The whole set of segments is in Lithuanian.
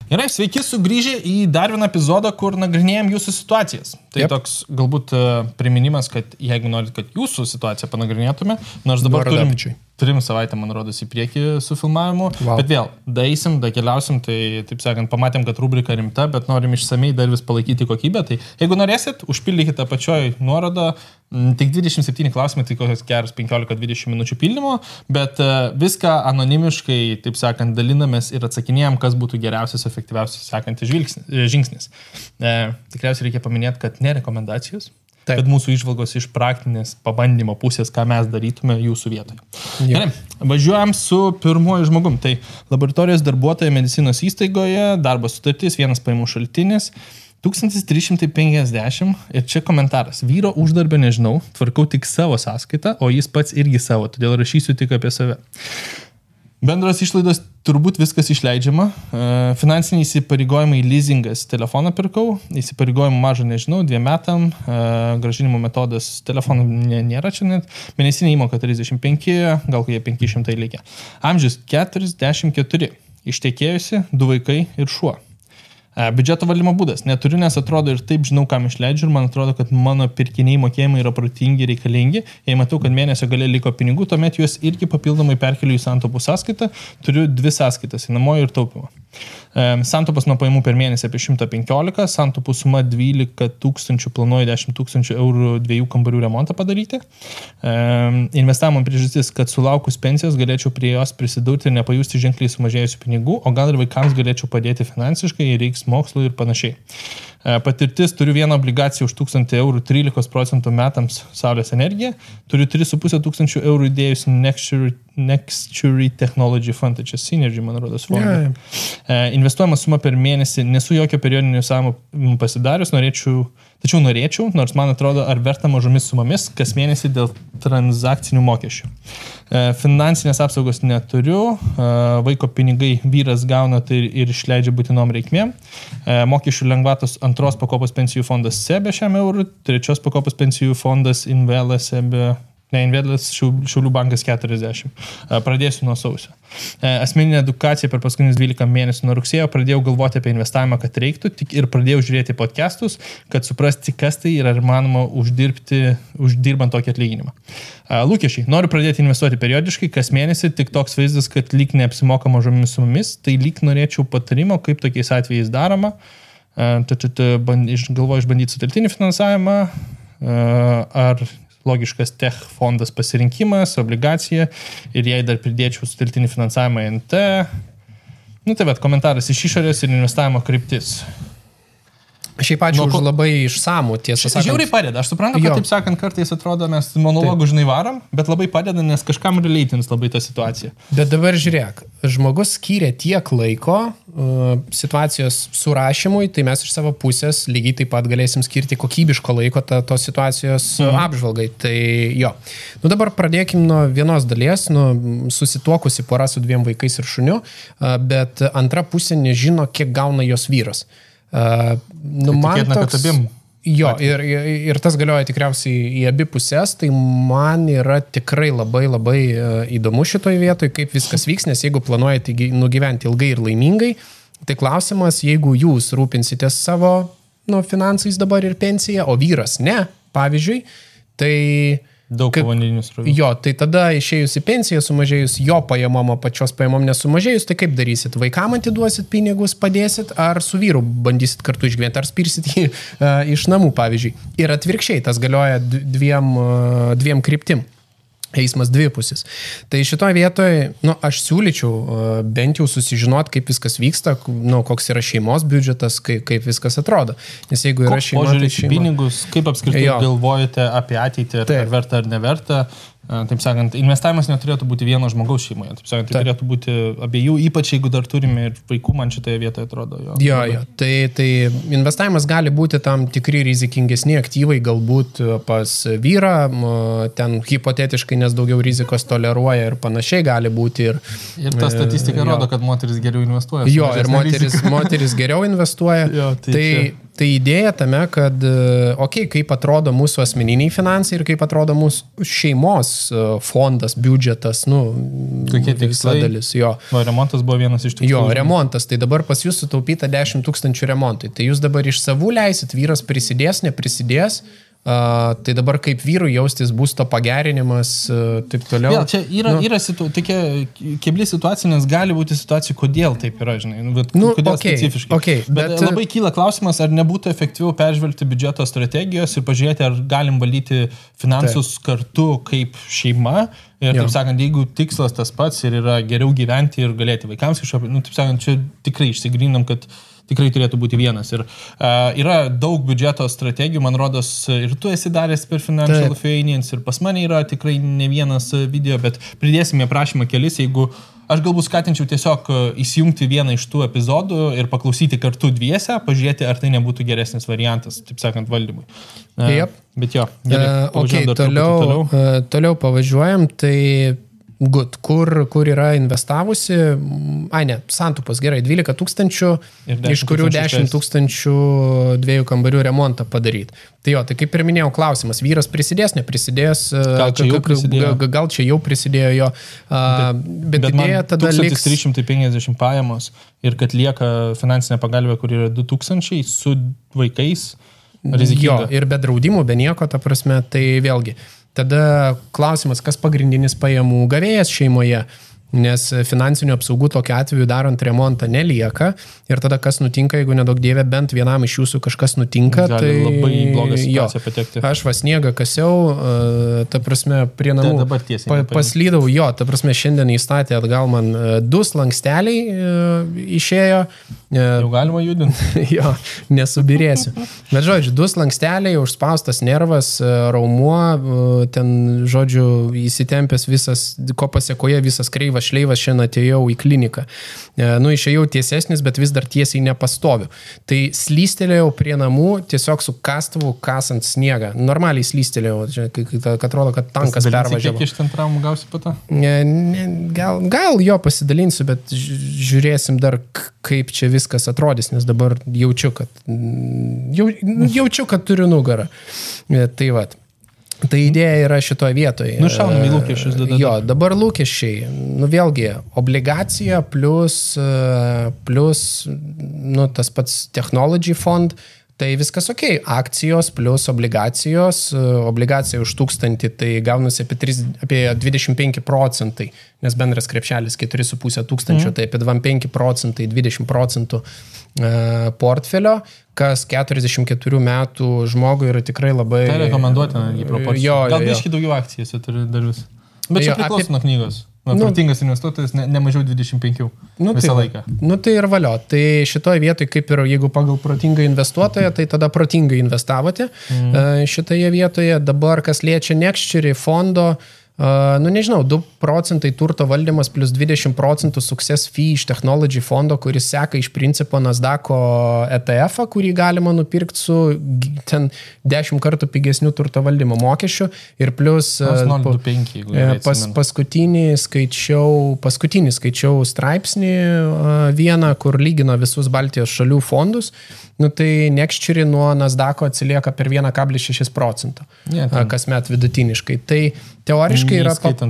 Gerai, sveiki sugrįžę į dar vieną epizodą, kur nagrinėjom jūsų situacijas. Tai toks galbūt priminimas, kad jeigu norit, kad jūsų situaciją panagrinėtume, nors dabar turim 3 savaitę, man rodos, į priekį su filmavimu, bet vėl, daisim, keliausim, tai, taip sakant, pamatėm, kad rubrika rimta, bet norim išsamei dar vis palaikyti kokybę, tai jeigu norėsit, užpildykite apačioj nuorodą, tik 27 klausimai, tai kokios geros 15-20 minučių pildymo, bet viską anonimiškai, taip sakant, dalinamės ir atsakinėjom, kas būtų geriausias, efektyviausias sekantis žingsnis. Tikriausiai reikia paminėti, kad ne rekomendacijos, kad mūsų išvalgos iš praktinės pabandymo pusės, ką mes darytume jūsų vietoje. Gerai, važiuojam su pirmuoju žmogum. Tai laboratorijos darbuotoja medicinos įstaigoje, darbo sutartis, vienas pajamų šaltinis, 1350 ir čia komentaras. Vyro uždarbio nežinau, tvarkau tik savo sąskaitą, o jis pats irgi savo, todėl rašysiu tik apie save. Bendros išlaidos turbūt viskas išleidžiama. Finansiniai įsipareigojimai leasingas telefoną pirkau, įsipareigojimų mažo nežinau, 2 metam, grąžinimo metodas telefonų nėra čia net, mėnesinė įmoka 35, gal kokie 500 likę. Amžius 44, ištekėjusi, 2 vaikai ir šuo. Biudžeto valdymo būdas. Neturiu, nes atrodo ir taip žinau, kam išleidžiu ir man atrodo, kad mano pirkiniai mokėjimai yra protingi, reikalingi. Jei matau, kad mėnesio gale liko pinigų, tuomet juos irgi papildomai perkeliu į santaupų sąskaitą. Turiu 2 sąskaitas, įnamojo ir taupimo. Santaupas nuo pajamų per mėnesį apie 115, santaupų suma 12 000, planuoju 10 000 eurų 2 kambarių remontą padaryti. Investavimo priežastis, kad sulaukus pensijos galėčiau prie jos prisidurti ir nepajusti ženkliai sumažėjusių pinigų, o gal ir vaikams galėčiau padėti finansiškai, reiks mokslo ir panašiai. Patirtis, turiu vieną obligaciją už 1000 eurų 13% metams saulės energiją, turiu 3500 eurų įdėjus Nextury Technology Fund, tai čia Synergy, man rodos, fondą. Investuojama suma per mėnesį, nesu jokio periodinio savimo pasidarius, tačiau norėčiau, nors man atrodo, ar verta mažomis sumomis kas mėnesį dėl transakcinių mokesčių. Finansinės apsaugos neturiu, vaiko pinigai vyras gauna tai ir išleidžia būtinom reikmėm, mokesčių lengvatos 2 pakopos pensijų fondas SEB šiam eurų, 3 pakopos pensijų fondas Invelas SEB, Invelas Šiaulių bankas 40. Pradėsiu nuo sausio. Asmeninė edukacija per paskutinius 12 mėnesių nuo rugsėjo pradėjau galvoti apie investavimą, kad reiktų, ir pradėjau žiūrėti podcastus, kad suprasti, kas tai yra įmanoma uždirbant tokį atlyginimą. Lūkesčiai. Noriu pradėti investuoti periodiškai, kas mėnesį, tik toks vaizdas, kad lyg neapsimoka mažomis sumomis, tai lyg norėčiau patarimo, kaip tokiais atvejais daroma. Galvoju išbandyti sutelktinį finansavimą, ar logiškas tech fondas pasirinkimas, obligacija ir jei dar pridėčiau sutelktinį finansavimą NT. Tai bet komentaras iš išorės ir investavimo kryptis. Šiaip ačiū už labai išsamų, tiesą sakant. Žiauriai padeda. Aš suprantu, kad taip sakant, kartais atrodo, mes monologų žinai varom, bet labai padeda, nes kažkam relaitins labai tą situaciją. Bet dabar žiūrėk, žmogus skyrė tiek laiko situacijos surašymui, tai mes iš savo pusės lygiai taip pat galėsim skirti kokybiško laiko tos situacijos apžvalgai. Tai jo. Dabar pradėkim nuo vienos dalies, susituokusi pora su 2 vaikais ir šuniu, bet antra pusė nežino, kiek gauna jos vyras. Man toks, ir tas galioja tikriausiai į abi pusės, tai man yra tikrai labai įdomu šitoj vietoj, kaip viskas vyks, nes jeigu planuojate nugyventi ilgai ir laimingai, tai klausimas, jeigu jūs rūpinsitės savo finansais dabar ir pensiją, o vyras ne, pavyzdžiui, tai daug povandeninių srovių. Jo, tai tada išėjus į pensiją, sumažėjus jo pajamom, pačios pajamom nesumažėjus, tai kaip darysit? Vaikam atiduosit pinigus, padėsit, ar su vyru bandysit kartu išgyventi, ar spirsit jį iš namų, pavyzdžiui. Ir atvirkščiai, tas galioja dviem kryptim. Eismas dvipusis. Tai šitoje vietoje, aš siūlyčiau bent jau susižinot, kaip viskas vyksta, koks yra šeimos biudžetas, kaip viskas atrodo. Nes jeigu yra šeima, tai šeima. Pinigus, kaip apskritai galvojate apie ateitį, ar verta ar neverta. Taip sakant, investavimas neturėtų būti vieno žmogaus šeimoje. Taip sakant, tai turėtų būti abiejų, ypač jeigu dar turime ir vaikų, man šitoje vietoje atrodo. Jo. Tai investavimas gali būti tam tikri rizikingesni aktyvai, galbūt pas vyrą, ten hipotetiškai, nes daugiau rizikos toleruoja ir panašiai gali būti. Ir ta statistika rodo, kad moteris geriau investuoja. Jo, ir moteris geriau investuoja. Jo, tai Tai idėja tame, kad, kaip atrodo mūsų asmeniniai finansai ir kaip atrodo mūsų šeimos fondas, biudžetas, kokie tikslai dalis, jo. Remontas buvo vienas iš tikslų. Jo, remontas, tai dabar pas jūs sutaupyta 10 000 remontui. Tai jūs dabar iš savų leisit, vyras prisidės, neprisidės. Tai dabar kaip vyrų jaustis būsto pagerinimas, taip toliau. Vėl, čia yra tokia kebli situacija, nes gali būti situacija, kodėl taip yra, žinai, kodėl specifiškai. Bet labai kyla klausimas, ar nebūtų efektyviau peržvelgti biudžeto strategijos ir pažiūrėti, ar galim valdyti finansus kartu kaip šeima. Ir taip sakant, jeigu tikslas tas pats ir yra geriau gyventi ir galėti vaikams kažkaip, taip sakant, čia tikrai išsigrynam, kad tikrai turėtų būti vienas. Ir yra daug biudžeto strategijų, man rodos, ir tu esi daręs per Financial Finance, ir pas mane yra tikrai ne vienas video, bet pridėsime aprašymą kelis, jeigu aš galbūt skatinčiau tiesiog įsijungti vieną iš tų epizodų ir paklausyti kartu dviese, pažiūrėti, ar tai nebūtų geresnis variantas, taip sakant, valdymui. Bet jo, gerai, toliau pavažiuojam, tai good, kur yra investavusi, santupas, gerai, 12 000, iš kurių 10 000 2 kambarių remontą padaryti. Tai jo, tai kaip ir minėjau, klausimas, vyras prisidės, neprisidės, gal čia jau prisidėjo jo, bet idėja tada liks 1350 pajamos ir kad lieka finansinė pagalbė, kur yra 2000 su vaikais, rizikinga. Jo, ir be draudimų, be nieko, ta prasme, tai vėlgi. Tada klausimas, kas pagrindinis pajamų gavėjas šeimoje, nes finansinių apsaugų tokiu atveju darant remontą nelieka ir tada kas nutinka, jeigu nedaug dievė, bent vienam iš jūsų kažkas nutinka, gali tai labai blogą situaciją patekti. Aš sniegą kasiau, ta prasme, prie namų paslydau, jo, ta prasme, šiandien įstatė atgal man 2 slanksteliai išėjo. Jau galima judinti. Jo, nesubirėsiu. Bet žodžiu, 2 slanksteliai, užspaustas nervas, raumuo, ten, žodžiu, įsitempęs visas, ko pasiekoje visas kreivas šleivas, šiandien atėjau į kliniką. Išėjau tiesesnis, bet vis dar tiesiai nepastoviu. Tai slystelėjau prie namų, tiesiog su kastuvu kasant sniegą. Normaliai slystelėjau, kad atrodo, kad tankas pervažiavo. Kiek iš ten traumų gausi po to? Gal jo pasidalinsiu, bet žiūrėsim dar, kaip čia viskas atrodys, nes dabar jaučiu, kad turiu nugarą. Tai vat. Tai idėja yra šitoje vietoje. Šaunam į lūkesčius. Jo, dabar lūkesčiai. Vėlgi, obligacija plus tas pats technology fond, tai viskas ok. Akcijos plus obligacijos. Obligacija už 1000, tai gaunasi apie 25%, nes bendras krepšelis 4,5 tūkstančio, tai apie 25%, 20% portfelio, kas 44 metų žmogui yra tikrai labai... Tai rekomenduotina į proporciją. Gal biškai daugiau akcijose turi dar vis. Bet čia priklauso nuo knygos. Protingas investuotojas ne mažiau 25 visą laiką. Tai ir valio. Tai šitoje vietoje, kaip ir jeigu pagal protingą investuotoją, tai tada protingai investavote šitoje vietoje. Dabar, kas liečia Nextchery fondo, nežinau, 2% turto valdymas plus 20% success fee iš technology fondo, kuris seka iš principo Nasdaq'o ETF-ą, kurį galima nupirkti su ten 10 kartų pigesnių turto valdymo mokesčių ir plus paskutinį skaičiau straipsnį vieną, kur lygino visus Baltijos šalių fondus. Tai Nextchery nuo Nasdaq'o atsilieka per 1,6%, kasmet vidutiniškai. Tai teoriškai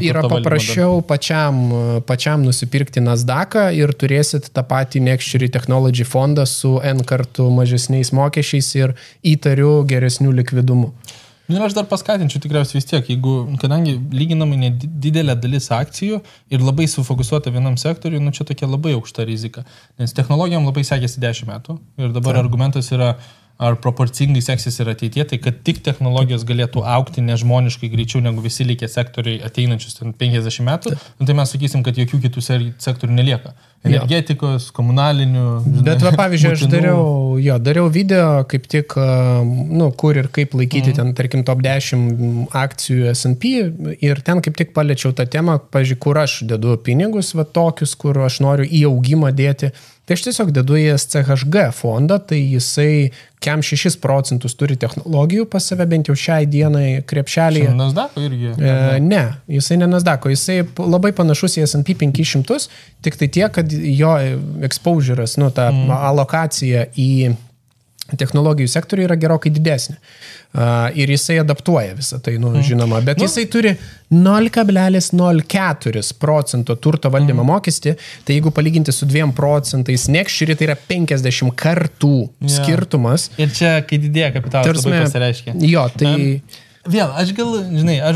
yra paprasčiau pačiam nusipirkti Nasdaq'ą ir turėsit tą patį Nextchery Technology fondą su N kartų mažesniais mokesčiais ir įtariu geresnių likvidumu. Ir aš dar paskatinčiau tikriausiai vis tiek, kadangi lyginamai nedidelė dalis akcijų ir labai sufokusuota vienam sektoriui, čia tokia labai aukšta rizika. Nes technologijom labai sekėsi 10 metų ir dabar argumentas yra, ar proporcingai seksis ir ateitie, tai kad tik technologijos galėtų augti nežmoniškai greičiau negu visi likę sektoriai ateinančius 50 metų, tai mes sakysim, kad jokių kitų sektorių nelieka. Energetikos, komunalinių. Bet pavyzdžiui, aš dariau video, kaip tik, kur ir kaip laikyti ten, tarkim, top 10 akcijų S&P ir ten kaip tik paliečiau tą temą, pavyzdžiui, kur aš dedu pinigus, tokius, kur aš noriu į augimą dėti. Tai aš tiesiog dedu į SCHG fondą, tai jisai kem 6% turi technologijų pas save, bent jau šiai dienai krepšelėje. Nasdaq'o irgi? Ne, jisai ne Nasdaq'o, jisai labai panašus į S&P 500, tik tai tiek, kad jo exposure'as, ta alokacija į technologijų sektoriuje yra gerokai didesnė. Ir jisai adaptuoja visą tai, žinoma. Bet jisai turi 0,04% turto valdymo mokestį, tai jeigu palyginti su 2%, Nextshare tai yra 50 kartų skirtumas. Ir čia, kai didėja kapitalas, labai pasireiškia. Jo, tai... Vėl, aš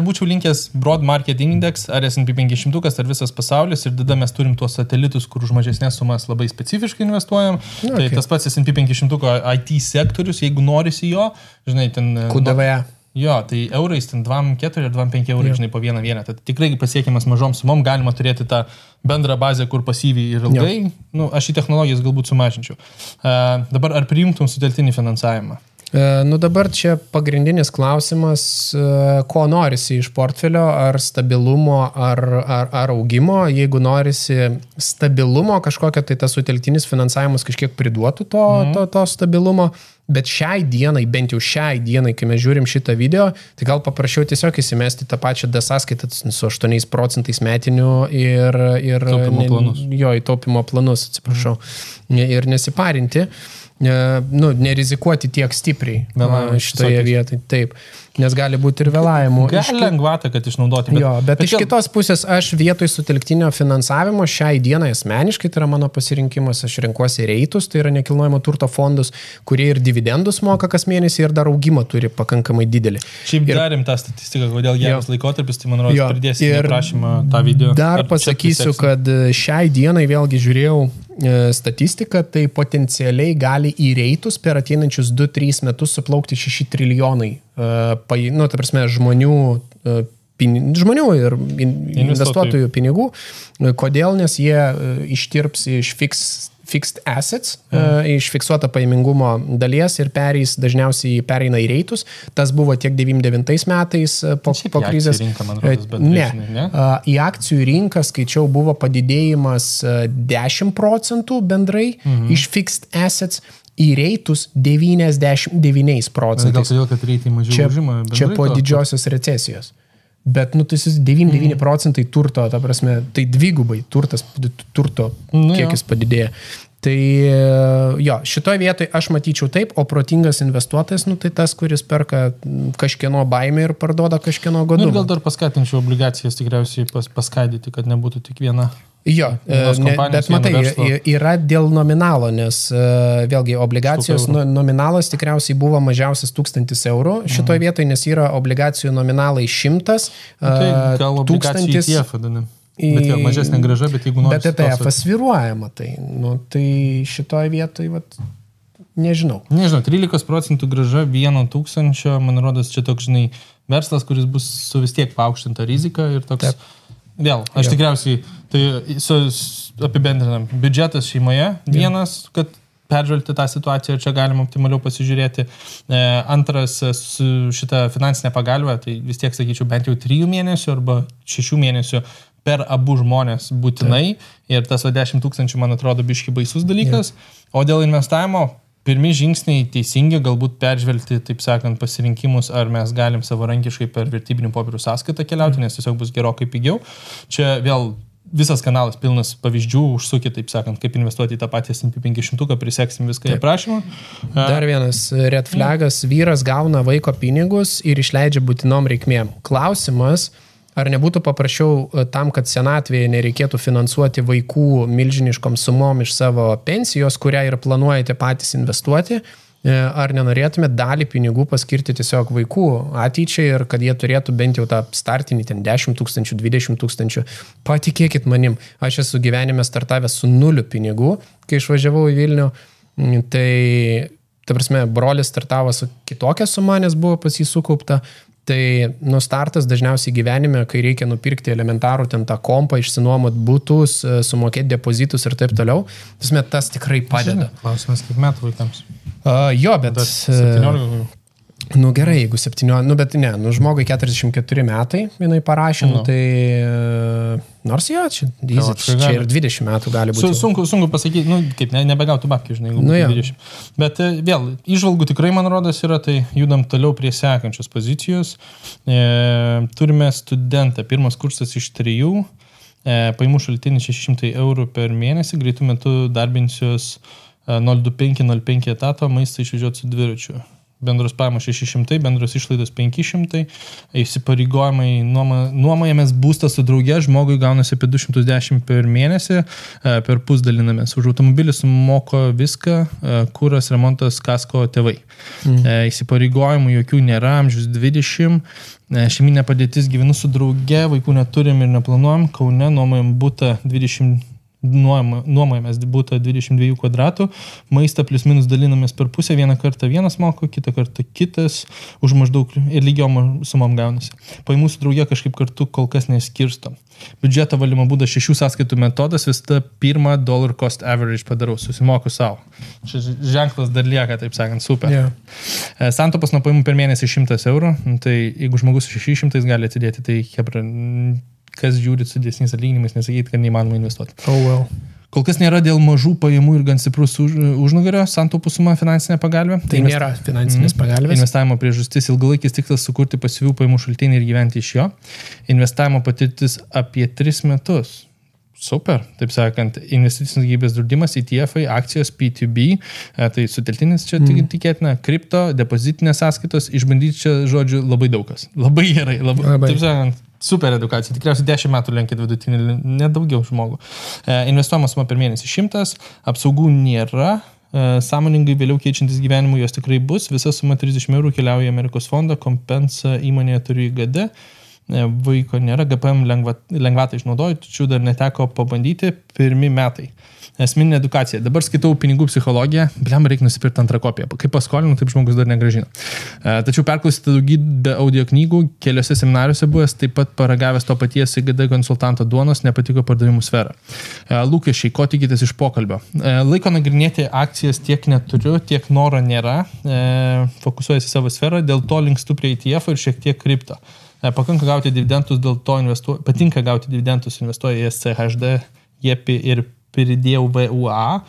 būčiau linkęs Broad Market Index, ar S&P 500, ar visas pasaulis, ir tada mes turim tuos satelitus, kur už mažesnės sumas labai specifiškai investuojam. Tai tas pats S&P 500 IT sektorius, jeigu norisi jo, ten... QDVE. Jo, tai eurais, ten 2,4 ir 2,5 eurai, po vieną vienetą. Tai tikrai pasiekiamas mažom sumom, galima turėti tą bendrą bazę, kur pasyviai ir ilgai. Aš į technologijas galbūt sumažinčiau. Dabar ar priimtum sutelktinį finansavimą? Dabar čia pagrindinis klausimas, ko norisi iš portfelio, ar stabilumo, ar augimo. Jeigu norisi stabilumo kažkokio, tai tas sutelktinis finansavimas kažkiek priduotų to stabilumo. Bet šiai dienai, bent jau šiai dienai, kai mes žiūrim šitą video, tai gal paprašiau tiesiog įsimesti tą pačią sąskaitą su 8% metinių ir taupimo planus, atsiprašau, ir nesiparinti. Nerizikuoti tiek stipriai šitoje vietoje. Taip, nes gali būti ir vėlavimų. Gali lengvatą, kad išnaudoti. Bet iš kitos pusės aš vietoj sutelktinio finansavimo šiai dienai asmeniškai, tai yra mano pasirinkimas, aš renkuosi reitus, tai yra nekilnojamo turto fondus, kurie ir dividendus moka kas mėnesį ir dar augimą turi pakankamai didelį. Šiaip darėm tą statistiką, kodėl geras laikotarpis, tai man rodos pridėsim prašymą tą video. Dar pasakysiu, kad šiai dienai vėlgi žiūrėjau statistiką, tai potencialiai gali į reitus per ateinančius 2-3 metus suplaukti 6 trilijonai ta prasme, žmonių ir investuotojų pinigų. Kodėl? Nes jie ištirps iš fixed assets, iš fiksuoto pajamingumo dalies ir dažniausiai pereina į reitus. Tas buvo tiek 99 metais po krizės. Į akcijų rinką skaičiau buvo padidėjimas 10% bendrai iš fixed assets. Į reitus 99%. Gal todėl, kad reitai mažiau užima bendrai? Čia po didžiosios recesijos. Bet, tai 99% turto, ta prasme, tai dvigubai turto kiekis padidėja. Tai šitoje vietoje aš matyčiau taip, o protingas investuotojas, tai tas, kuris perka kažkieno baimę ir parduoda kažkieno godumą. Ir gal dar paskatinčiau obligacijas tikriausiai paskaidyti, kad nebūtų tik viena. Bet matai, yra dėl nominalo, nes vėlgi obligacijos nominalas tikriausiai buvo mažiausias 1000 eurų šitoje vietoje, nes yra obligacijų nominalai 100, gal obligacijų ETF vadinam. Bet mažesnė grąža, bet jeigu nori... Bet ETF svyruojama, tai šitoje vietoje, nežinau. 13% grąža 1000, man rodos, čia toks, verslas, kuris bus su vis tiek paaukštinta rizika ir toks... Vėl, aš tikriausiai, tai apibendrinam, biudžetas šeimoje vienas, kad peržvelgti tą situaciją ir čia galima optimaliau pasižiūrėti. Antras, su šitą finansinę pagalbę, tai vis tiek sakyčiau bent jau 3 mėnesių arba 6 mėnesių per abu žmonės būtinai. Ir tas 10 000, man atrodo, biški baisus dalykas. O dėl investavimo, pirmi žingsniai teisingi, galbūt peržvelgti, taip sakant, pasirinkimus, ar mes galim savarankiškai per vertybinių popierių sąskaitą keliauti, nes tiesiog bus gerokai pigiau. Čia vėl visas kanalas pilnas pavyzdžių, užsukit, taip sakant, kaip investuoti į tą patį S&P 500, priseksim viską į aprašymą. Dar vienas red flagas, vyras gauna vaiko pinigus ir išleidžia būtinom reikmėm. Klausimas, ar nebūtų paprašiau tam, kad senatvėje nereikėtų finansuoti vaikų milžiniškom sumom iš savo pensijos, kurią ir planuojate patys investuoti, ar nenorėtume dalį pinigų paskirti tiesiog vaikų ateičiai ir kad jie turėtų bent jau tą startinį 10 000, 20 000. Patikėkit manim, aš esu gyvenime startavęs su 0 pinigų, kai išvažiavau į Vilnių, tai, ta prasme, brolis startavo su kitokia suma, nes buvo pas jį sukaupta. Tai startas dažniausiai gyvenime, kai reikia nupirkti elementarų ten tą kompą, išsinuomot butus, sumokėti depozitus ir taip toliau. Tas tikrai padeda. Klausimas, kiek metų vaikams? Bet 17. Gerai, jeigu 17, bet ne, žmogui 44 metai, jinai parašė, tai nors čia ir 20 metų gali būti. Sunku pasakyti, kaip nebegautų babkių, jeigu 20. Bet vėl, įžvalgų tikrai, man rodos, yra, tai judam toliau prie sekančios pozicijos. Turime studentą, pirmas kursas iš 3, pajamų šaltinis 600 eurų per mėnesį, greitų metų darbinsios 025 etato, maistą išvežioti su dviračiu. Bendros pajamos 600, bendros išlaidos 500, įsipareigojimai nuomojamės būstą su drauge, žmogui gaunasi apie 210 per mėnesį, per pusdalinamės. Už automobilį sumoko viską, kuras, remontas, kasko, tėvai. Įsipareigojimų jokių nėra, amžius 20, šeiminė padėtis, gyvenu su drauge, vaikų neturim ir neplanuojam, Kaune nuomojam būtą 20. Nuomojamės būtą 22 kvadratų, maistą plius minus dalinamės per pusę, vieną kartą vienas moko, kitą kartą kitas, už maždaug ir lygiom sumom gaunasi. Pajamų su drauge kažkaip kartu kol kas neskirstom. Biudžeto valymo būdas 6 sąskaitų metodas, vis tą pirmą dollar cost average padarau, susimoku savo. Šis ženklas dar lieka, taip sakant, super. Yeah. Santaupas nuo pajamų per mėnesį 100 eurų, tai jeigu žmogus 600 gali atidėti, tai hebra, kas žiūrit su dėsniais atlyginimais, nesakyti, kad neįmanoma investuoti. Oh well. Kol kas nėra dėl mažų pajamų ir gan stiprus užnugario santaupų suma finansinė pagalbė. Tai nėra finansinės pagalbės. Investavimo priežastis ilgalaikis tikslas sukurti pasyvių pajamų šaltinį ir gyventi iš jo. Investavimo patirtis apie 3 metus. Super, taip sakant, investicinis gyvybės draudimas, ETF-ai, akcijos, P2B, tai suteltinis čia tikėtina, kripto, depozitinės sąskaitos, išbandyti čia, žodžiu, labai daugas. Labai gerai, labai. Taip sakant, super edukacija, tikriausiai 10 metų lenkit vidutinį, nedaugiau žmogų. Investuojamas suma per mėnesį 100, apsaugų nėra, sąmoningai vėliau keičiantis gyvenimų jos tikrai bus, visa suma 30 eurų keliauja Amerikos fondą, kompensa įmonėje turi IGD, vaiko nėra, GPM lengvatą išnaudoju, tačiau dar neteko pabandyti, 1 metai. Esminė edukacija. Dabar skaitau pinigų psichologiją, reikia nusipirkti antrą kopiją. Kaip paskolinu, taip žmogus dar negrąžino. Tačiau perklausyti daugybę audio knygų, keliose seminariuose buvęs, taip pat paragavęs to paties IGD konsultanto duonos, nepatiko pardavimų sfera. Lūkesčiai, ko tikitės iš pokalbio. Laiko nagrinėti akcijas tiek neturiu, tiek noro nėra. Fokusuojasi savo sferą, dėl to linkstu prie ETF ir šiek tiek kripto. Patinka gauti dividendus, investuoja į SCHD, JEPI ir pridėjau VUA,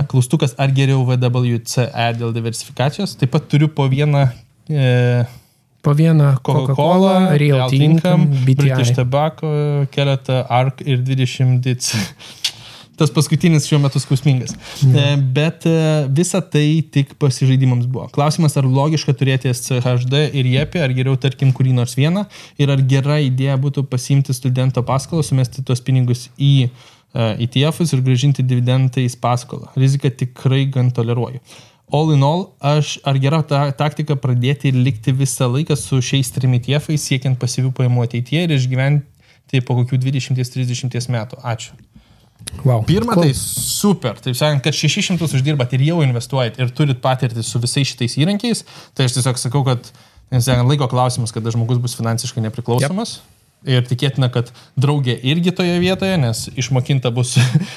klaustukas ar geriau VWCE dėl diversifikacijos. Taip pat turiu po vieną Coca-Cola, Real Income, British Tobacco, keletą ARK ir 20 DITS. Tas paskutinis šiuo metu skausmingas. Bet visa tai tik pasižaidimams buvo. Klausimas, ar logiška turėti SCHD ir JEPI, ar geriau, tarkim, kurį nors vieną, ir ar gera idėja būtų pasiimti studento paskolą, sumesti tuos pinigus į ETF-us ir grąžinti dividendais paskolą. Riziką tikrai gan toleruoju. All in all, ar gera taktika pradėti ir likti visą laiką su šiais 3 ETF-ais, siekiant pasyvių pajamų ateityje ir išgyventi po kokių 20-30 metų. Ačiū. Wow. Pirma, tai super. Taip sakant, kad 600 uždirbat ir jau investuojat ir turit patirtį su visais šitais įrankiais, tai aš tiesiog sakau, kad laiko klausimas, kada žmogus bus finansiškai nepriklausomas. Yep. Ir tikėtina, kad draugė irgi toje vietoje, nes išmokinta bus,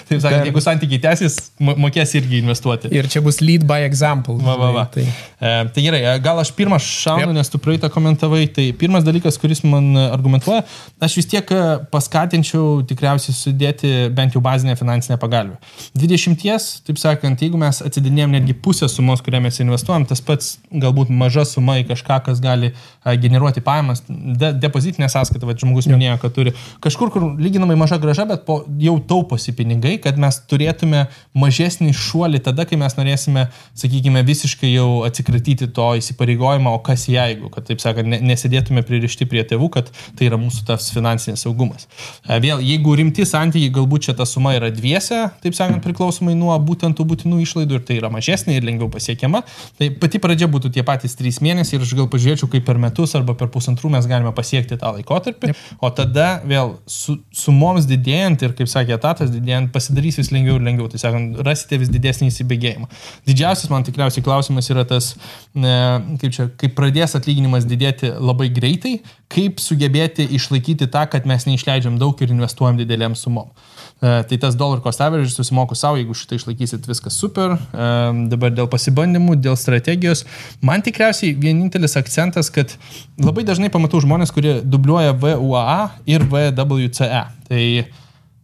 taip sakant, jeigu santykiai tęsis, mokės irgi investuoti. Ir čia bus lead by example. Tai gerai, gal aš pirmą šaunu, nes tu praeitą komentavai. Tai pirmas dalykas, kuris man argumentuoja, aš vis tiek paskatinčiau tikriausiai sudėti bent jau bazinę finansinę pagalbę. 20, taip sakant, jeigu mes atsidinėjom netgi pusę sumos, kurią mes investuojam, tas pats galbūt maža suma į kažką, kas gali generuoti pajamas, depozitinė sąskaita, žmogus minėjo, kad turi kažkur, kur lyginamai maža grąža, bet jau tauposi pinigai, kad mes turėtume mažesnį šuolį tada, kai mes norėsime, sakykime, visiškai jau atsikratyti to įsipareigojimo, o kas jeigu, kad, taip sakant, nesėdėtume pririšti prie tėvų, kad tai yra mūsų tas finansinis saugumas. Vėl, jeigu rimti santykiai, galbūt čia ta suma yra dviese, taip sakant, priklausomai nuo būtent tų būtinų išlaidų ir tai yra mažesnė ir lengviau pasiekiama, tai pati pradžia būtų tie patys 3 mėnesiai ir aš gal pažiūrėčiau, kaip per metus arba per 1,5 mes galime pasiekti tą laikotarpį. O tada vėl sumoms didėjant ir, kaip sakė, etatas didėjant, pasidarys vis lengviau ir lengviau. Tai sakant, rasite vis didesnį įsibėgėjimą. Didžiausias man tikriausiai klausimas yra tas, kaip pradės atlyginimas didėti labai greitai, kaip sugebėti išlaikyti tą, kad mes neišleidžiam daug ir investuojam didelėm sumom. Tai tas dollar cost average susimoku savo, jeigu šitą išlaikysit, viskas super. Dabar dėl pasibandymų, dėl strategijos. Man tikriausiai vienintelis akcentas, kad labai dažnai pamatau žmonės, kurie dubliuoja VUA ir VWCE. Tai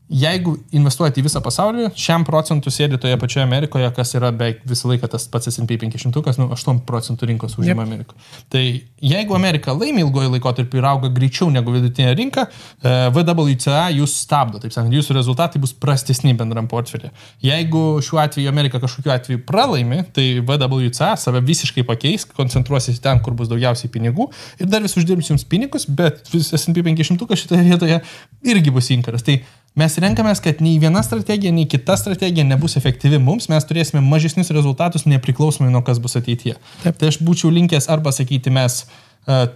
jeigu investuojate į visą pasaulį, 100% sėdi toje pačioje Amerikoje, kas yra beveik visą laiką tas pats S&P 500, 8% rinkos užima Amerikoje. Tai jeigu Amerika laimi ilgoji laikotarpį ir auga greičiau negu vidutinė rinka, VWCA jūs stabdo, taip sakant, jūsų rezultatai bus prastesni bendram portfelį. Jeigu šiuo atveju Amerika kažkokiu atveju pralaimi, tai VWCA save visiškai pakeis, koncentruosis ten, kur bus daugiausiai pinigų ir dar vis uždirbs jums pinigus, bet S&P 500 šitoje vietoje irgi bus inkaras. Tai mes renkamės, kad nei viena strategija, nei kita strategija nebus efektyvi mums, mes turėsime mažesnius rezultatus nepriklausomai nuo kas bus ateityje. Taip. Tai aš būčiau linkęs arba sakyti, mes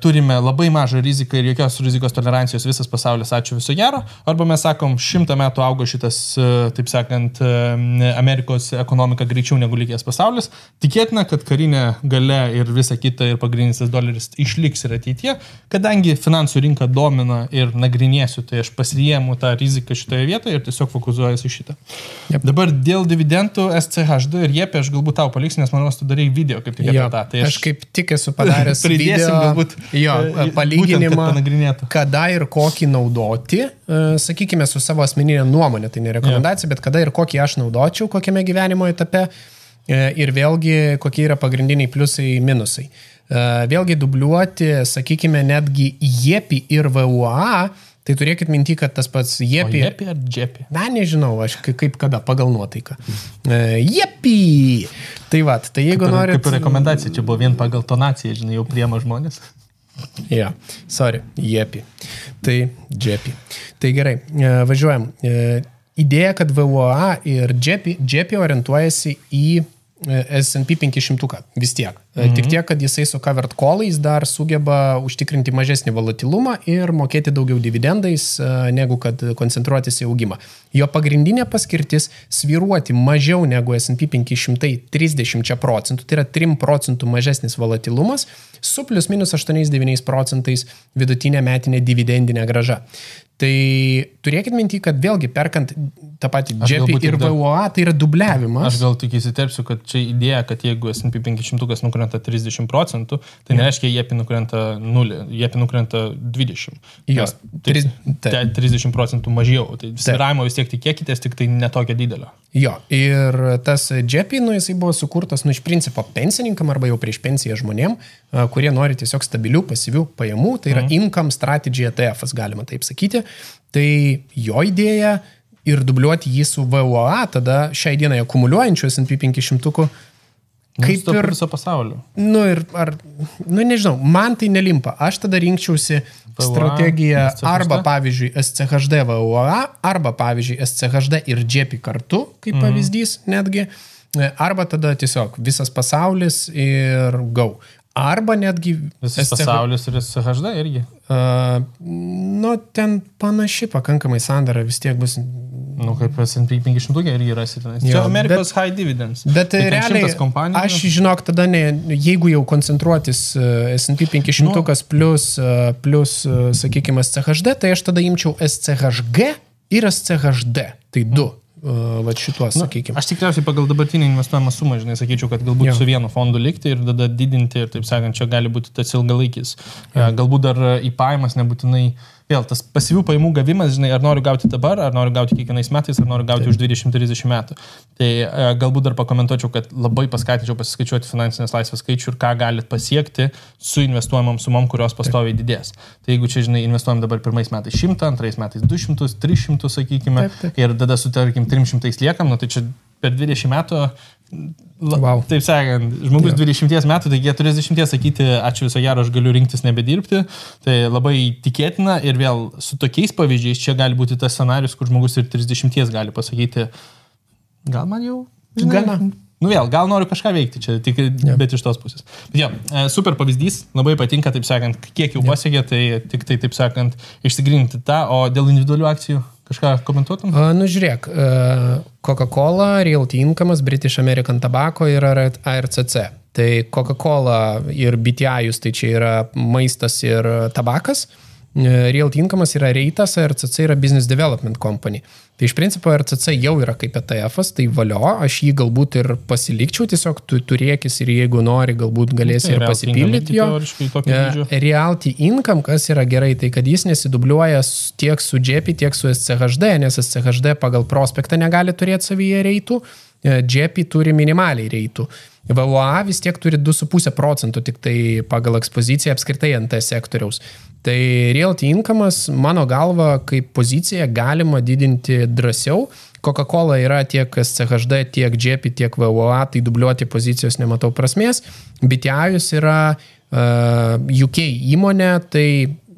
turime labai mažą riziką ir jokios rizikos tolerancijos visas pasaulis, ačiū viso gero, arba mes sakom, 100 metų augo šitas, taip sakant, Amerikos ekonomika greičiau negu likęs pasaulis. Tikėtina, kad karinė galia ir visa kita ir pagrindinis doleris išliks ir ateityje, kadangi finansų rinka domina ir nagrinėsiu, tai aš pasiėmu tą riziką šitoje vietoje ir tiesiog fokusuojuosi šitą. Yep. Dabar dėl dividendų SCHD ir JEP aš galbūt tau paliksiu, nes manau, tu darai video kaip tik apie tą. Tai aš kaip tik esu padaręs video. Palyginimą, kada ir kokį naudoti, sakykime, su savo asmeninė nuomonė, tai ne rekomendacija, bet kada ir kokį aš naudočiau, kokiame gyvenimo etape ir vėlgi kokie yra pagrindiniai pliusai, minusai. Vėlgi dubliuoti, sakykime, netgi JEPI ir VUA, tai turėkit minti, kad tas pats JEPI... O JEPI ar JEPI? Na, nežinau, aš kaip kada, pagal nuotaiką. JEPI! Tai va, tai jeigu norit... Kaip rekomendacija, čia buvo vien pagal tonaciją, žinai, jau priema žmonės. JEPI. Tai JEPI. Tai gerai, važiuojam. Idėja, kad VUA ir JEPI orientuojasi į S&P 500 vis tiek. Tik tiek, kad jisai su covered callais dar sugeba užtikrinti mažesnį volatilumą ir mokėti daugiau dividendais, negu kad koncentruotis į augimą. Jo pagrindinė paskirtis svyruoti mažiau negu S&P 500 30%, tai yra 3% mažesnis volatilumas, su plus minus 8-9% vidutinė metinė dividendinė grąža. Tai turėkit minti, kad vėlgi perkant tą patį JEPI ir VUA, tai yra dubliavimas. Aš gal tik įsiterpsiu, kad čia idėja, kad jeigu S&P 500 nukrenta 30%, tai nereiškia JEPI nukrenta 0, JEPI nukrenta 20. Jos, 30% mažiau. Tai svyravimo vis tiek tikėkitės, tik tai netokia didelio. Jo, ir tas JEPI, jisai buvo sukurtas, iš principo pensininkam arba jau prieš pensiją žmonėm, kurie nori tiesiog stabilių, pasyvių pajamų, tai yra income strategy ETF, galima taip sakyti. Tai jo idėja ir dubliuoti jį su VUA, tada šiai dienai akumuliuojančių S&P 500 kaip ir viso pasaulio. Nežinau, man tai nelimpa. Aš tada rinkčiausi strategiją arba, pavyzdžiui, SCHD VUA, arba, pavyzdžiui, SCHD ir JEPI kartu, kaip pavyzdys netgi, arba tada tiesiog visas pasaulis ir go. Arba netgi... Visas pasaulis ir SCHD irgi. Ten panaši pakankamai sandara vis tiek bus... Kaip S&P 500 irgi rasite. Čia Amerikos high dividends. Bet realiai, aš žinok, tada jeigu jau koncentruotis S&P 500 plus, sakykime, SCHD, tai aš tada imčiau SCHG ir SCHD. Tai du. Šituos, sakykime. Aš tikriausiai pagal dabartinį investuojamą sumą, sakyčiau, kad galbūt su vienu fondu likti ir tada didinti ir, taip sakant, čia gali būti tas ilgalaikis. Galbūt dar į pajamas nebūtinai, vėl tas pasyvių pajamų gavimas, ar noriu gauti dabar, ar noriu gauti kiekvienais metais, ar noriu gauti už 20-30 metų. Tai galbūt dar pakomentuočiau, kad labai paskatinčiau pasiskaičiuoti finansinės laisvės skaičių ir ką galit pasiekti su investuojamam sumom, kurios pastoviai didės. Tai jeigu čia, investuojam dabar pirmais metais 100, antrais metais 200, 300, sakykime, ir tada su, tarkim, 300 liekam, tai čia per 20 metų, taip sakant, žmogus 20 metų, tai 40 sakyti, ačiū viso gero, aš galiu rinktis nebedirbti, tai labai tikėtina ir vėl su tokiais pavyzdžiais čia gali būti tas scenarius, kur žmogus ir 30 gali pasakyti, gal man jau, gana. Gal noriu kažką veikti čia, bet iš tos pusės. Bet super pavyzdys, labai patinka, taip sakant, kiek jau pasiekė, tai tik tai, taip sakant, išsigryninti tą, o dėl individualių akcijų kažką komentuotum? Žiūrėk, Coca-Cola, Realty Income, British American Tobacco ir ARCC. Tai Coca-Cola ir BTI, tai čia yra maistas ir tabakas. Realty Income'as yra reitas, RCC yra Business Development Company. Tai iš principo RCC jau yra kaip ETF-as, tai valio, aš jį galbūt ir pasilikčiau, tiesiog tu turėkis ir jeigu nori, galbūt galėsi ir pasipildyti jo. Realty Income, kas yra gerai, tai kad jis nesidubliuoja tiek su JEPI, tiek su SCHD, nes SCHD pagal prospektą negali turėti savyje reitų, JEPI turi minimaliai reitų. VWA vis tiek turi 2,5% tik tai pagal ekspoziciją apskritai NT sektoriaus. Tai Realty Income'as, mano galva, kaip pozicija galima didinti drąsiau. Coca-Cola yra tiek SCHD, tiek JEPI, tiek VWA, tai dubliuoti pozicijos nematau prasmės. BTIus yra UK įmonė, tai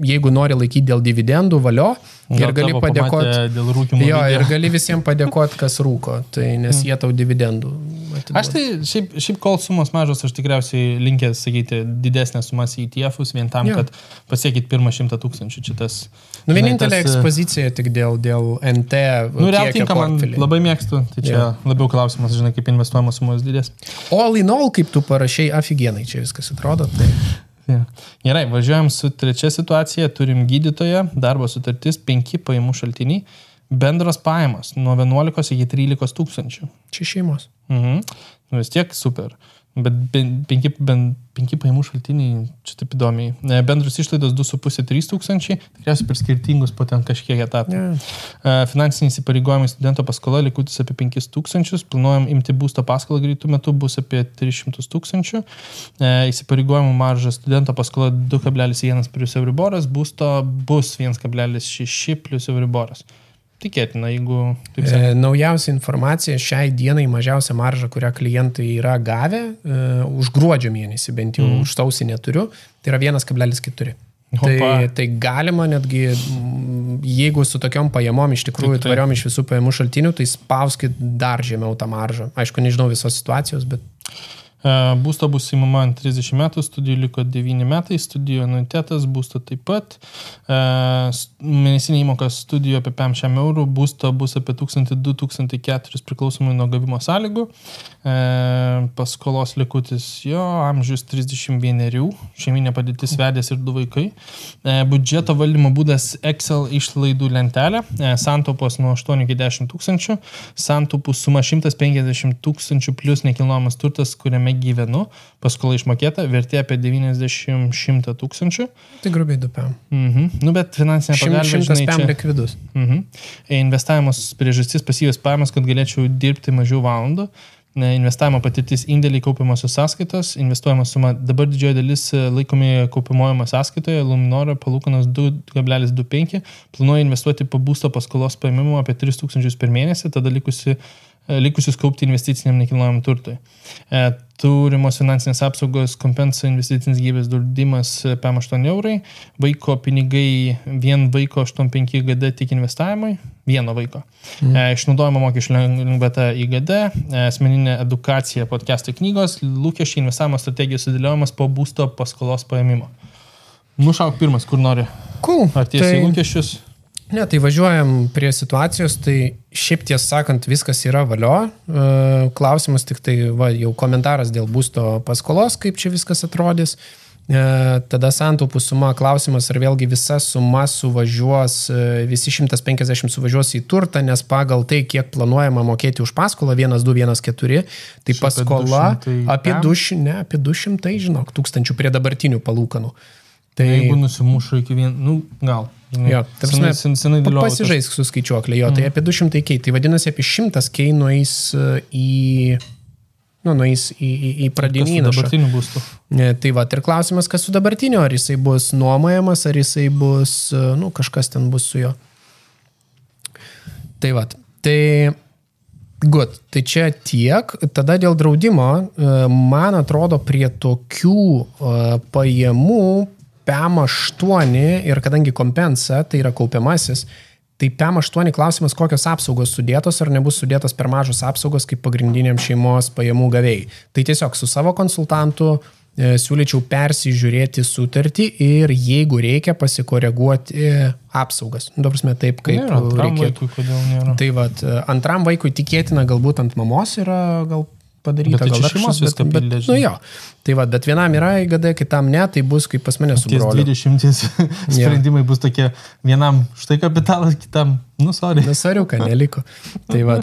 jeigu nori laikyti dėl dividendų, valio, ir gali padėkoti. Jo, ir gali visiems padėkoti, kas rūko, tai nes jie tau dividendų atiduoda. Aš tai šiaip kol sumos mažos, aš tikriausiai linkęs sakyti didesnės sumas į ETF-us vien tam, kad pasiekit pirmą 100 000. Čia tas, vienintelė ekspozicija tik dėl NT. Realty Income man labai mėgstu, tai čia labiau klausimas, žinai, kaip investuojamos sumos didės. All in all, kaip tu parašai, aфиgenai čia viskas atrodo. Tai... Gerai, važiuojam su trečia situacija, turim gydytoją, darbo sutartis, 5 pajamų šaltiniai, bendros pajamos nuo 11 iki 13 tūkstančių. Čia šeimos. Vis tiek super. Bet 5 pajamų šaltiniai, čia taip įdomiai. Bendros išlaidos 2,5-3 tūkstančiai, tikriausiai per skirtingus po ten kažkiek etapų. Finansiniai įsipareigojimai studento paskola likutis apie 5 tūkstančius, planuojam imti būsto paskolą greitų metų, bus apie 300 tūkstančių. Įsipareigojimų marža studento paskola 2,1 + Euriboras, būsto bus 1,6 + Euriboras. Tikėtina, jeigu... Naujausia informacija, šiai dienai mažiausia marža, kurią klientai yra gavę, už gruodžio mėnesį, bent jau už sausį neturiu, tai yra 1,4. Tai galima netgi, jeigu su tokiom pajamom iš tikrųjų tvariom iš visų pajamų šaltinių, tai spauskit dar žemiau tą maržą. Aišku, nežinau visos situacijos, bet... Būsto bus įmama ant 30 metų, studijų liko 9 metai, studijų anuitetas, būsto taip pat. Mėnesinė įmoka studijų apie 500 eurų, būsto bus apie 1,2-1,400 priklausomai nuo gavimo sąlygų. Paskolos likutis jo, amžius 31, šeiminė padėtis vedęs ir 2 vaikai. Budžeto valdymo būdas Excel išlaidų lentelė, santaupos nuo 8 iki 10 tūkstančių, santaupų suma 150 tūkstančių plus nekilnojamas turtas, kuriame gyvenu, paskola išmokėta, vertė apie 90-100 tūkstančių. Tai grubiai 2 PM. Bet finansinė pagalba, 100 PM likvidus. Investavimas priežastis pasyvios pajamas, kad galėčiau dirbti mažiau valandų. Investavimo patirtis indėliai kaupiamosios sąskaitos, investuojama suma dabar didžioji dalis laikomi kaupiamojama sąskaitoje, Luminor palūkanos 2,25, planuoju investuoti po būsto paskolos paėmimo apie 3 tūkstančius per mėnesį, tada likusius kaupti investiciniam nekilnojamam turtui. Turimos finansinės apsaugos, kompensa investicinis gyvybės draudimas PM8 eurai, vaiko pinigai, vien vaiko 85 GD tik investavimui, vieno vaiko. Išnaudojimo mokesčių lengvata IGD, asmeninė edukacija, podcastai knygos, lūkesčiai investavimo strategijos sudėliojimas po būsto paskolos paėmimo. Nušauk pirmas, kur nori. Cool. Ar tiesiai lūkesčius? Ne, tai važiuojam prie situacijos, tai šiaip tiesą sakant viskas yra valio. Klausimas tik tai jau komentaras dėl būsto paskolos, kaip čia viskas atrodys. Tada santaupų suma, klausimas, ar vėlgi visa suma suvažiuos, visi 150 suvažiuos į turtą, nes pagal tai, kiek planuojama mokėti už paskolą, 1,214, tai paskola apie 200, žinok, tūkstančių prie dabartinių palūkanų. Tai jeigu nusimušu iki gal. Jo, pasižaisk su skaičiuoklė, jo, tai apie 200 kei, tai vadinasi apie 100 kei nueis į pradinį įnašą. Tai va, ir klausimas, kas su dabartiniu, ar jisai bus nuomojamas, ar jisai bus, kažkas ten bus su jo. Tai va, tai čia tiek, tada dėl draudimo, man atrodo prie tokių pajamų PM8 ir kadangi kompensa, tai yra kaupiamasis, tai PM8 klausimas, kokios apsaugos sudėtos ar nebus sudėtos per mažos apsaugos kaip pagrindiniam šeimos pajamų gavėjai. Tai tiesiog su savo konsultantu siūlyčiau persižiūrėti sutartį ir jeigu reikia pasikoreguoti apsaugas. Dabar taip, kaip reikėtų. Vaikui, kodėl nėra? Tai vat, antram vaikui tikėtina galbūt ant mamos yra gal padaryta. Bet tai šeimos viską pildė. Nu jo, tai va, bet vienam yra IGD, kitam ne, tai bus kaip pas mane su broliu. 20 sprendimai bus tokie, vienam štai kapitalas, kitam, sorry. Sariuką neliko. Tai va,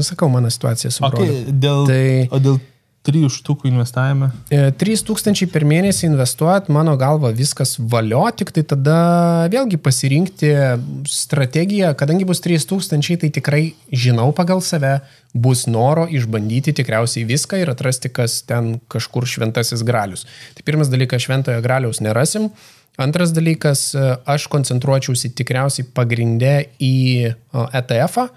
sakau, mano situacija su broliu. O dėl 3 štukų investavime? 3000 per mėnesį investuot, mano galva viskas valio, tik tai tada vėlgi pasirinkti strategiją, kadangi bus 3000, tai tikrai žinau pagal save, bus noro išbandyti tikriausiai viską ir atrasti, kas ten kažkur šventasis gralius. Tai pirmas dalykas, šventojo graliaus nerasim. Antras dalykas, aš koncentruočiausi tikriausiai pagrindę į ETF-ą,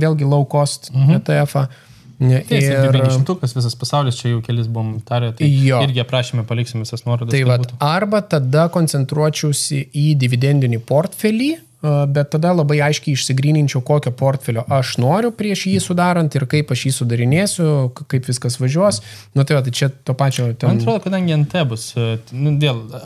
vėlgi low cost ETF-ą. Ir 500, visas pasaulis, čia jau kelis buvom tarę, tai irgi aprašymę paliksim visas nuorodas. Tai vat, arba tada koncentruočiausi į dividendinį portfelį, bet tada labai aiškiai išsigryninčiau, kokio portfelio aš noriu prieš jį sudarant ir kaip aš jį sudarinėsiu, kaip viskas važiuos. Tai va, tai čia to pačio... Man atrodo, kadangi NT bus,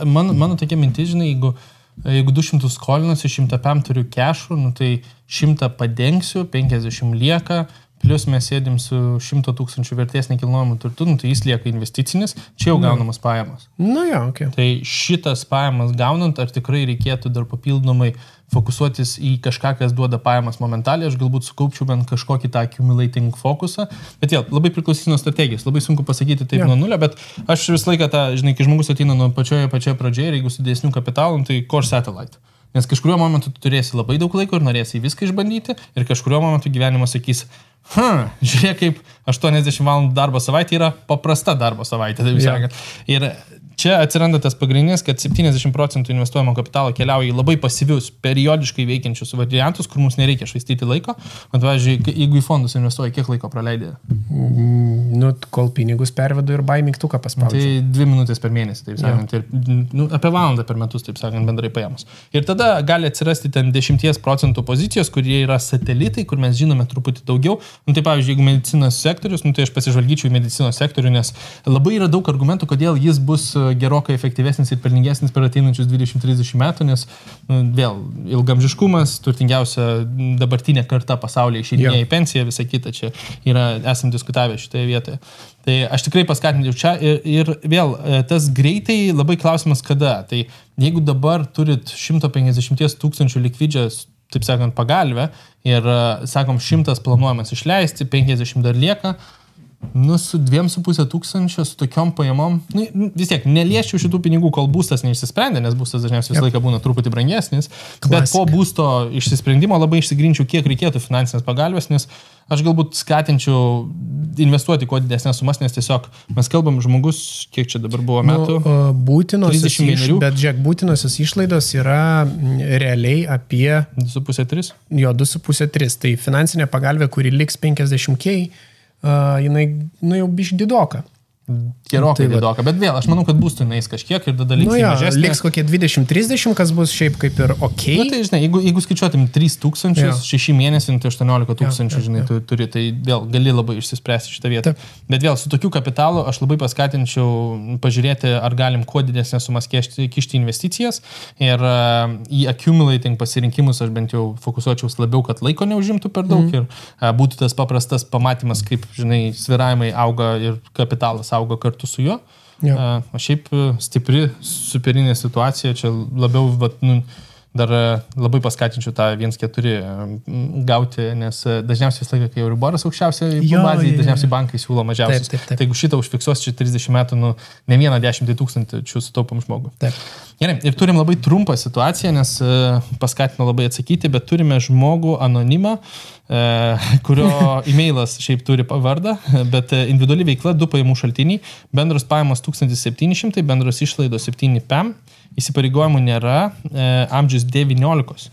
mano tokia mintis, žinai, jeigu 200 skolinusi, 100 turiu kešų, tai 100 padengsiu, 50 lieka, plus mes sėdim su 100 000 vertės nekilnojamų turtų, tai jis lieka investicinis, čia jau gaunamas pajamas. Okay. Tai šitas pajamas gaunant, ar tikrai reikėtų dar papildomai fokusuotis į kažką, kas duoda pajamas momentaliai, aš galbūt sukaupčiau bent kažkokį tą accumulating fokusą, bet vėl, labai priklausys nuo strategijos, labai sunku pasakyti taip nuo nulio, bet aš visą laiką tą, žinai, kai žmogus ateina nuo pačioje pradžioje ir jeigu su didesniu kapitalu, tai core satellite. Nes kažkuriuo momentu tu turėsi labai daug laiko ir norėsi viską išbandyti ir kažkuriuo momentu gyvenimas sakys, žiūrėk, kaip 80 valandų darbo savaitė yra paprasta darbo savaitė, taip sakant. Ir čia atsiranda tas pagrindinis, kad 70% investuojamo kapitalo keliauja į labai pasyvius, periodiškai veikiančius variantus, kur mums nereikia švaistyti laiko. Man, pavyzdžiui, jeigu į fondus investuoji, kiek laiko praleidė? Kol pinigus pervedu ir buy mygtuką paspaudžiu. Tai 2 minutės per mėnesį, taip sakant. Ir, apie valandą per metus, taip sakant, bendrai paėmus. Ir tada gali atsirasti ten 10% pozicijos, kurie yra satelitai, kur mes žinome truputį daugiau. Tai pavyzdžiui, jeigu medicinos sektorius, tai aš pasižvalgyčiau į medicinos sektorių, nes labai yra daug argumentų, kodėl jis bus gerokai efektyvesnis ir pelningesnis per ateinančius 20-30 metų, nes vėl ilgamžiškumas, turtingiausia dabartinė karta pasaulyje išeidinėja į pensiją, visą kitą čia esam diskutavę šitoje vietoje. Tai aš tikrai paskatinčiau čia ir vėl tas greitai labai klausimas kada. Tai jeigu dabar turit 150 000 likvidžias, taip sakant, pagalvę ir, sakom, 100 planuojamas išleisti, 50 dar lieka, su 2,5 tūkstančio, su tokiom pajamom, vis tiek, nelieščiau šitų pinigų, kol būstas neišsisprendė, nes būstas dažniausiai visą laiką būna truputį brangesnis, bet po būsto išsisprendimo labai išsigrinčiau, kiek reikėtų finansinės pagalbės, nes aš galbūt skatinčiau investuoti kuo didesnės sumas, nes tiesiog mes kalbam žmogus, kiek čia dabar buvo metų? Bet žiūrėk, būtinosios išlaidos yra realiai apie 2,5-3? Jo, 2,5-3. Tai finansinė pagalbė, kuri liks 50K, jinai jau bišk didoka. Gerokai didoka, bet vėl, aš manau, kad būstų neįs kažkiek ir tada liks mažesnė. Liks kokie 20-30, kas bus šiaip kaip ir okei. Tai žinai, jeigu skaičiuotum 3,000, 6 mėnesį, tai 18,000, žinai, tu turi, tai vėl gali labai išsispręsti šitą vietą. Bet vėl, su tokiu kapitalu aš labai paskatinčiau pažiūrėti, ar galim kuo didesnės sumas kišti investicijas ir į accumulating pasirinkimus aš bent jau fokusuočiaus labiau, kad laiko neužimtų per daug ir būtų tas paprastas pamatymas, kaip, žinai, svyravimai auga ir kapitalas auga kartu su juo. O šiaip stipri, superinė situacija, čia labiau, dar labai paskatinčiau tą 1,4 gauti, nes dažniausiai visą laiką, kai Euriboras aukščiausia bazė, dažniausiai bankai siūlo mažiausias. Tai jeigu šitą užfiksuos čia 30 metų, ne vieną 10 000 sutaupom žmogų. Gerai, ir turim labai trumpą situaciją, nes paskatino labai atsakyti, bet turime žmogų anonimą, kurio e-mailas šiaip turi vardą, bet individuali veikla 2 pajamų šaltiniai, bendros pajamos 1700, bendros išlaidos 7 PEM, įsipareigojimų nėra, amžius 19,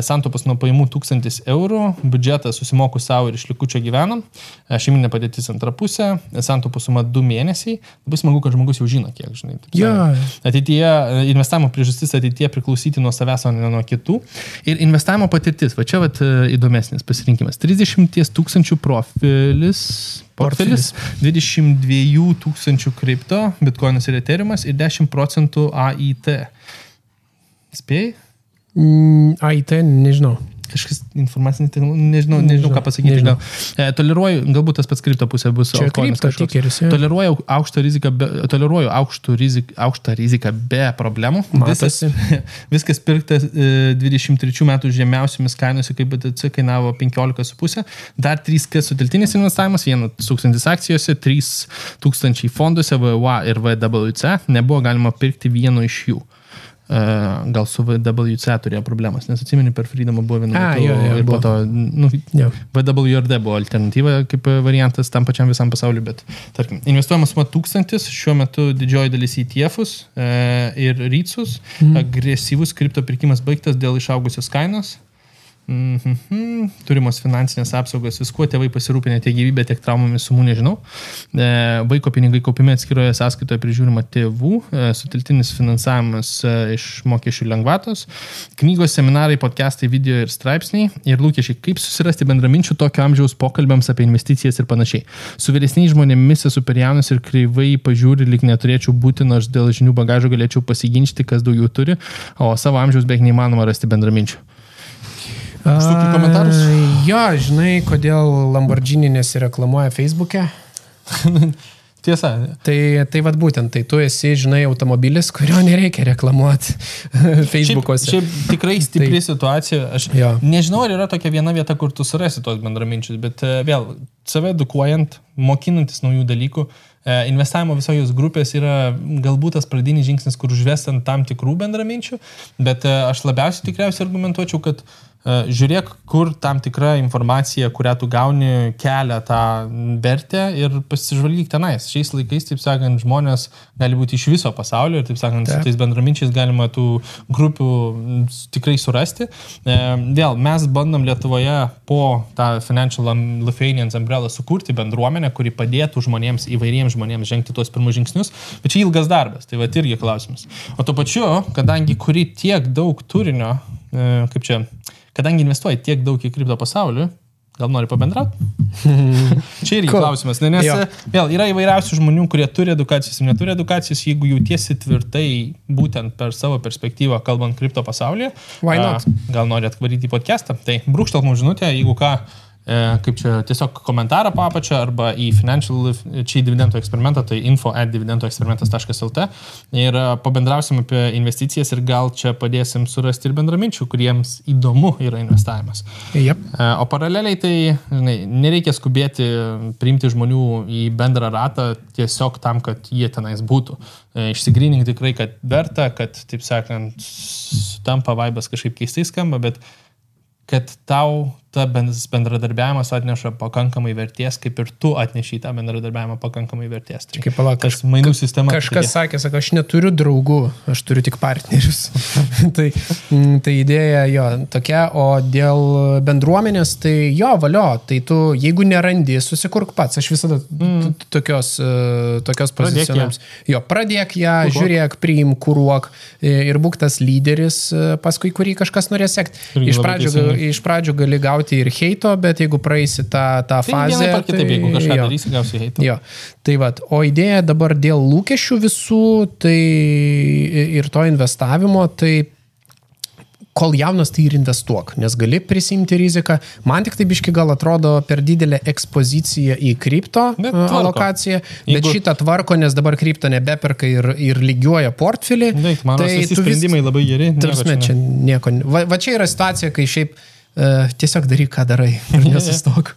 santaupos nuo pajamų 1000 eurų, biudžetas susimoku savo ir iš likučio gyvenam, šeiminė padėtis antra pusė, santaupos suma 2 mėnesiai, labai smagu, kad žmogus jau žino, kiek, žinai. Ateityje, investavimo priežastis ateityje priklausyti nuo savęs, o ne nuo kitų. Ir investavimo patirtis, va čia įdomesnis pasirinkimas. 30 000 portfelis, 22 000 kripto, bitkoinas ir eteriumas ir 10% AIT. Spėjai? AIT, nežinau. kažkas informacinė, nežinau ką pasakyti. Toleruoju, galbūt tas pats kripto pusė bus. Čia kripto tikeris. Toleruoju aukštą riziką be problemų. Viskas pirkta 23 metų žemiausiomis kainose, kaip BTC kainavo 15,5. Dar 3K suteltinis investavimas, 1,000 akcijose, 3,000 fonduose, VWA ir VWC. Nebuvo galima pirkti vieno iš jų. Gal su VWC turėjo problemas, nes atsimeni, per Freedomą buvo vienu metu ir po to VWRD buvo alternatyva kaip variantas tam pačiam visam pasauliu, bet tarkim, investuojama suma 1000, šiuo metu didžioji dalis ETF-us ir REITs-us, agresyvus kripto pirkimas baigtas dėl išaugusios kainos. Turimos finansinės apsaugos, viskuo tėvai pasirūpinę tiek gyvybę, tiek traumomis sumų, nežinau. Vaiko pinigai kaupiami atskiroje sąskaitoje prižiūrima tėvų, suteltinis finansavimas iš mokesčių lengvatos, knygos, seminarai, podcastai, video ir straipsniai ir lūkesčiai, kaip susirasti bendraminčių tokio amžiaus pokalbiams apie investicijas ir panašiai. Su vyresniais žmonėmis esu per jaunas ir kreivai pažiūri, lyg neturėčiau būti, nors dėl žinių bagažo galėčiau pasiginčyti, kas daugiau turi, o savo amžiaus beveik neįmanoma rasti bendraminčių. Komentarus? Jo, žinai, kodėl Lamborghini nesireklamuoja Facebook'e? Tiesa. Tai vat būtent, tai tu esi, žinai, automobilis, kurio nereikia reklamuoti Facebook'ose. Šiaip tikrai stipri situacija. Aš nežinau, ar yra tokia viena vieta, kur tu surasi tos bendraminčius, bet vėl, save edukuojant, mokinantis naujų dalykų, investavimo visos grupės yra galbūt tas pradinis žingsnis, kur užvestant tam tikrų bendraminčių, bet aš labiausiai tikriausiai argumentuočiau, kad žiūrėk, kur tam tikra informacija, kurią tu gauni, kelia tą vertę ir pasižvalgyk tenais. Šiais laikais, taip sakant, žmonės gali būti iš viso pasaulio ir, taip sakant, su tais bendraminčiais galima tų grupių tikrai surasti. Vėl, mes bandom Lietuvoje po tą Financial Lithuanians Umbrella sukurti bendruomenę, kuri padėtų žmonėms, įvairiems žmonėms žengti tuos pirmus žingsnius, bet čia ilgas darbas, tai va irgi klausimas. O tuo pačiu, kadangi kuri tiek daug turinio, kadangi investuoji tiek daug į kripto pasauliu, gal nori pabendrauti? Čia irgi klausimas, nes vėl yra įvairiausių žmonių, kurie turi edukacijas ir neturi edukacijas, jeigu jautiesi tvirtai būtent per savo perspektyvą kalbant kripto pasaulyje, gal nori atvaryti į podcastą, tai brūkštelk mums žinutę, jeigu ką, kaip čia tiesiog komentarą papačią arba į Financial čia dividendų eksperimentą, tai info@dividendoeksperimentas.lt ir pabendrausim apie investicijas ir gal čia padėsim surasti ir bendraminčių, kuriems įdomu yra investavimas. O paraleliai tai, žinai, nereikia skubėti priimti žmonių į bendrą ratą tiesiog tam, kad jie tenais būtų. Išsigrynink tikrai, kad verta, kad, taip sakant, tampa vaibas kažkaip keistai skamba, bet kad tau ta bendradarbiavimas atneša pakankamai vertės, kaip ir tu atneši tą bendradarbiavimą pakankamai vertės. Tai kaip palauk, tas mainų sistema. Kažkas sakė, aš neturiu draugų, aš turiu tik partnerius. tai idėja jo tokia, o dėl bendruomenės, tai jo, valio, tai tu, jeigu nerandi, susikurk pats. Aš visada tokios pozicionams. Jo, pradėk ją, žiūrėk, priim, kuruok ir būk tas lyderis, paskui kurį kažkas norės sekti. Iš pradžių gali gauti ir heito, bet jeigu praeisi tą fazę... Tai kitaip, jeigu kažką darysi, gausi heito. Jo, tai vat, o idėja dabar dėl lūkesčių visų, tai ir to investavimo, tai kol jaunas, tai ir investuok, nes gali prisimti riziką. Man tik tai biški gal atrodo per didelę ekspoziciją į kripto alokaciją, bet šitą tvarko, nes dabar kripto nebeperka ir lygiuoja portfelį. Mano visi sprendimai labai geri. Čia nieko. Va čia yra situacija, kai šiaip tiesiog daryk, ką darai ir nesustok.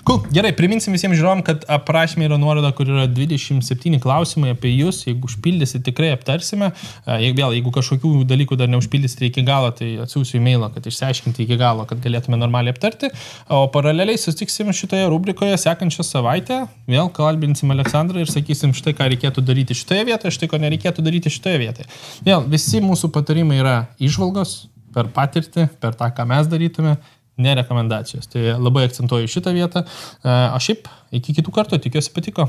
Cool. Gerai, priminsim visiems žiūrovom, kad aprašymė yra nuoroda, kur yra 27 klausimai apie jūs. Jeigu užpildysi, tikrai aptarsime. Jeigu kažkokių dalykų dar neužpildysite iki galo, tai atsiųsiu e-mailą, kad išsiaiškinti iki galo, kad galėtume normaliai aptarti. O paraleliai susitiksim šitoje rubrikoje sekančią savaitę. Vėl kalbinsim Aleksandrą ir sakysim štai, ką reikėtų daryti šitoje vietoje, štai, ko nereikėtų daryti šitoje vietoje. Vėl, visi mūsų patarimai yra įžvalgos, per patirtį, per tą, ką mes darytume, ne rekomendacijos. Tai labai akcentuoju šitą vietą. O šiaip, iki kitų kartų, tikiuosi patiko.